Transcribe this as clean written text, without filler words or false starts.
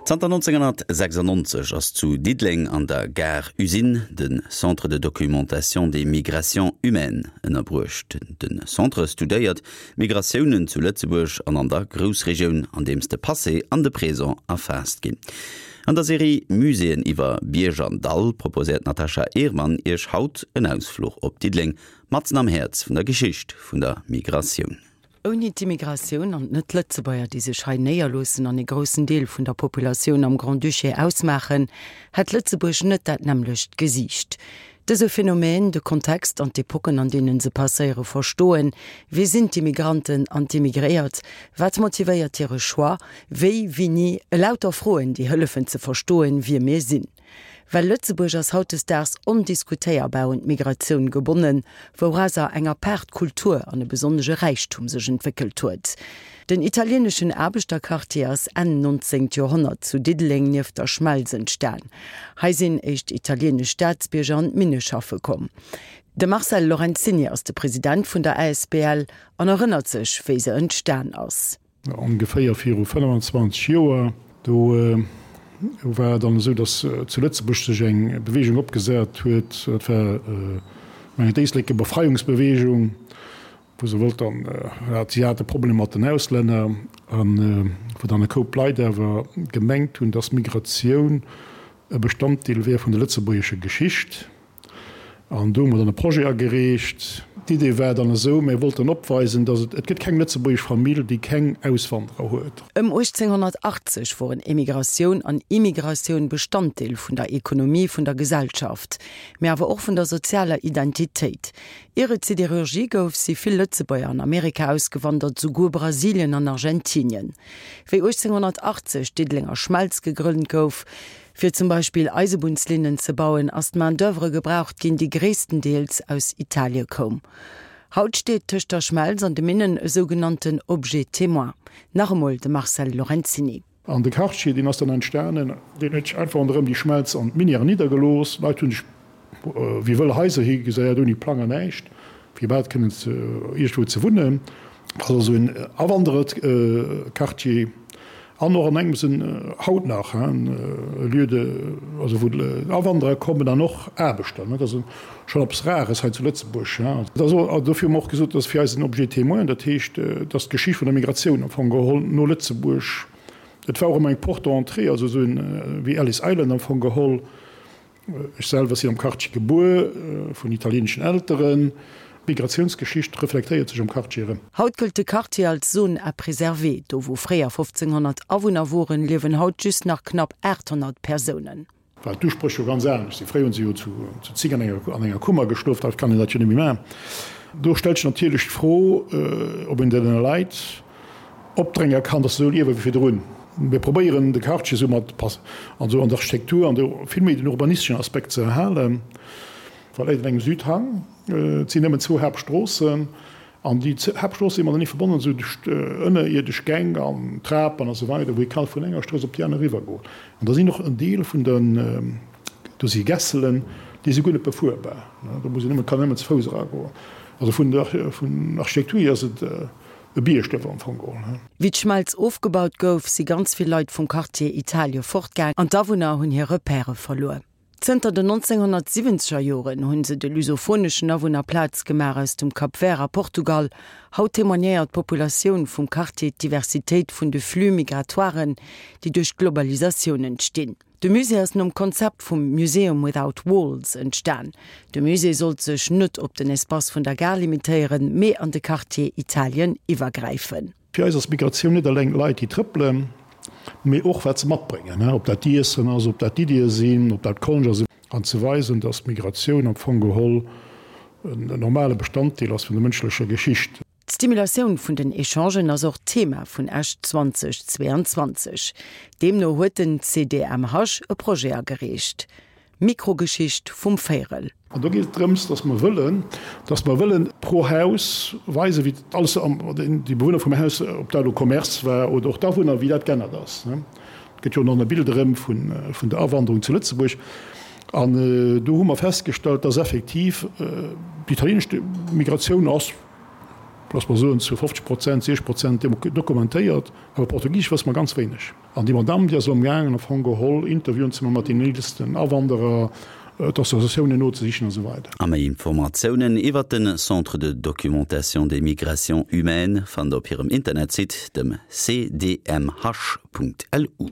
Zanter 1996 ass zu Diddeleng an der Gare Usine de Centre de documentation des migrations humaines ënnerbruecht. De Centre studéiert d'Migratiounen zu Lëtzebuerg an an der Groussregioun, andeems de Passé an de Présent erfaasst ginn. An der Serie Muséeën iwwer Bierg an Dall proposéiert d'Natasha Ehrmann Iech haut en Ausfluch op Diddeleng, matzen am Häerz vun der Geschicht vun der Migratioun. Ouni d'Immigratioun an d'Net-Lëtzebuerger, déi sech hei néierloossen an ee groussen Deel vun der Populatioun am Grand-Duché ausmaachen, hätt Lëtzebuerg net dat nämmlecht Gesiicht. Dëse Phänomen, de Kontext an d'Epocken, an deenen se passéiere verstoen, Wie sinn d'Immigranten an d'Immigréiert? Wat motivéiert hire Choix? Wéi, wini? Elauter Froen, déi hëllefen ze verstoen, wie mir sinn. Well Lëtzebuerg ass hautdesdaags ondiskutéierbar un d'Migratioun gebonnen, wourauser eng apaart Kultur an e besonnege Räichtum sech entwéckelt huet. Den italieneschen Aarbechterquartier ass Enn 19. Joerhonnert zu Diddeleng nieft der Schmelz entstan. Hei sinn éischt italienesch Staatsbierger an d'Minne schaffe komm. De Marcel Lorenzini ass de President vun der asbl an erënnert sech, wéi se entstan ass. Ongeféier viru 25 Joer, do war et dann esou, datt zu Lëtzebuerg sech eng Beweegung opgesat huet, dat war mengen d'Éisleker Befreiungsbeweegung, wou se wollt dann, si hate Problemer mat den Auslänner, a wou dann e Koup Leit awer gemengt hunn, datt Migratioun e Bestanddeel wär vun der lëtzebuergescher Geschicht. An do hu mer dann e Projet agereecht. D'Idee war dann esou, mir wollten opweisen, dass et, et gëtt keng lëtzebuergesch Famill, déi keng Auswanderer huet. Ëm 1880 woren Emigratioun an Immigratioun Bestanddeel vun der Ekonomie vun der Gesellschaft, mee awer och vun der sozialer Identitéit. Ier et Siderurgie gouf, si vill Lëtzebuerger an Amerika ausgewandert, souguer Brasilien an Argentinien. Wéi 1880 d'Diddelenger Schmelz gegrënnt gouf, Fir zum Beispill Eisebunnslinnen ze bauen, ass d'Main d'oeuvre gebraucht ginn, déi gréisstendeels aus Italie koum. Haut steet tëscht der Schmelz an de Minnen e sougenannten Objet témoin. Nach emol de Marcel Lorenzini. An de Quartier, deen ass dann entstanen, deen huet sech einfach ronderëm déi Schmelz an d'Minièren niddergelooss. D'Leit hu sech wéi wëll Haiser higeséiert, ouni Plang an näischt, fir iwwerhaapt kënnen iergendwou ze wunnen. Dat ass also en Awandererquartier an och an engem Sënn haut nach e Lieu de, also wou Awanderer kommen an och Aarbechter. Dat ass schonn eppes Rares hei zu Lëtzebuerg. Dat ass och, dofir hu mer och gesot, dat ass fir eis en Objet témoin, dat heescht, dass d'Geschicht vun der Migratioun am Fong geholl no Lëtzebuerg, et war och ëmmer eng Porte d'entrée, also esou wéi Ellis Island am Fong geholl, Ech selwer sinn am Quartier gebuer, vun italieeneschen Elteren. D'Migratiounsgeschicht reflektéiert sech am Quartier erëm. Haut gëllt de Quartier als Zone à préserver. Do wou fréier 1.500 Awunner woren, liewen haut just nach knapp 800 Persounen. Well d'Uspréch jo ganz anescht sinn. Fréier hu se jo zu zig an enger Kummer geschlof, haut kann een dat jo net méi maachen. Do stellt sech natierlech d'Fro, ob een deene Leit opdrénge kann, dass se esou liewe wéi virdrun. Mir probéieren de Quartier esou mat an esou an der Architektur an de vill méi den urbanisteschen Aspekt ze erhalen. Well läit an engem Südhang, et sinn nëmmen zwou Haaptstroossen an déi Haaptstroosse si matenee verbonnen esou duerch ënnerierdesch Gäng an Trapen a sou weider, wou ee ka vun enger Strooss op déi aner eriwwer goen. An da sinn och en Deel vun den, do si Gässelen, déi si guer net befuerbar, do muss een nëmmen, kann een nëmmen ze Fouss eragoen. Also vun der vun Architektur hier ass et E Biergduerf am Fong geholl, he? Wéi d'Schmelz ofgebaut gouf, si ganz vill Leit vum Quartier Italie fortgaang an d'Awunner hunn hir Repèrë verluer. Zënter den 1970er Joren hunn se de lusophoneschen Awunner Plaz gemaach aus dem Cap Vert a Portugal. Haut témoignéiert d'Populatioun vum Quartier d'Diversitéit vun de Flux migratoiren, déi duerch d'Globalisatioun entstinn. De Musée ass nom Konzept vum Museum without walls entstan. De Musée sollt sech net op den Espace vun der Gare limitéieren, mee an de Quartier Italien iwwergräifen. Fir eis ass Migratioun net eleng Leit, déi trëppelen, mee och wat se matbréngen, ob dat d'Iessen ass, ob dat d'Iddie sinn, ob dat d'Konscht ass. An ze weisen, dass Migratioun am Fong geholl en normale Bestanddeel ass vun der mënschlecher Geschicht. D'Stimulatioun vun den Echangen ass och Thema vun Esch 2022. Deemno huet den CDMH e Projet agereecht, Mikrogeschicht vum Véirel. An do geet et drëms, dass mer wëllen, dass mer wëllen pro Haus weisen, wéi alles, déi Bewunner vum Haus, ob dat elo Commerce war oder och d'Awunner, wéi dat g'ännert ass. Et gëtt jo och nach e Bild erëm vun der Awanderung zu Lëtzebuerg. An do hu mer festgestallt, dass effektiv déi italienesch Migratioun ass. Looss mer soen, zu 50 Prozent, 60 Prozent dokumentéiert, awer Portugisesch wësse mer ganz wéineg. An déi Madamm, déi ass elo amgaangen, am Fong geholl Interviewen ze maachen mat deenen eelsten Awanderer, d'Associatiounen nozesichen a sou weider. A méi Informatiounen iwwert de Centre de documentation des migrations humaines fannt der op hirem Internetsite, dem cdmh.lu.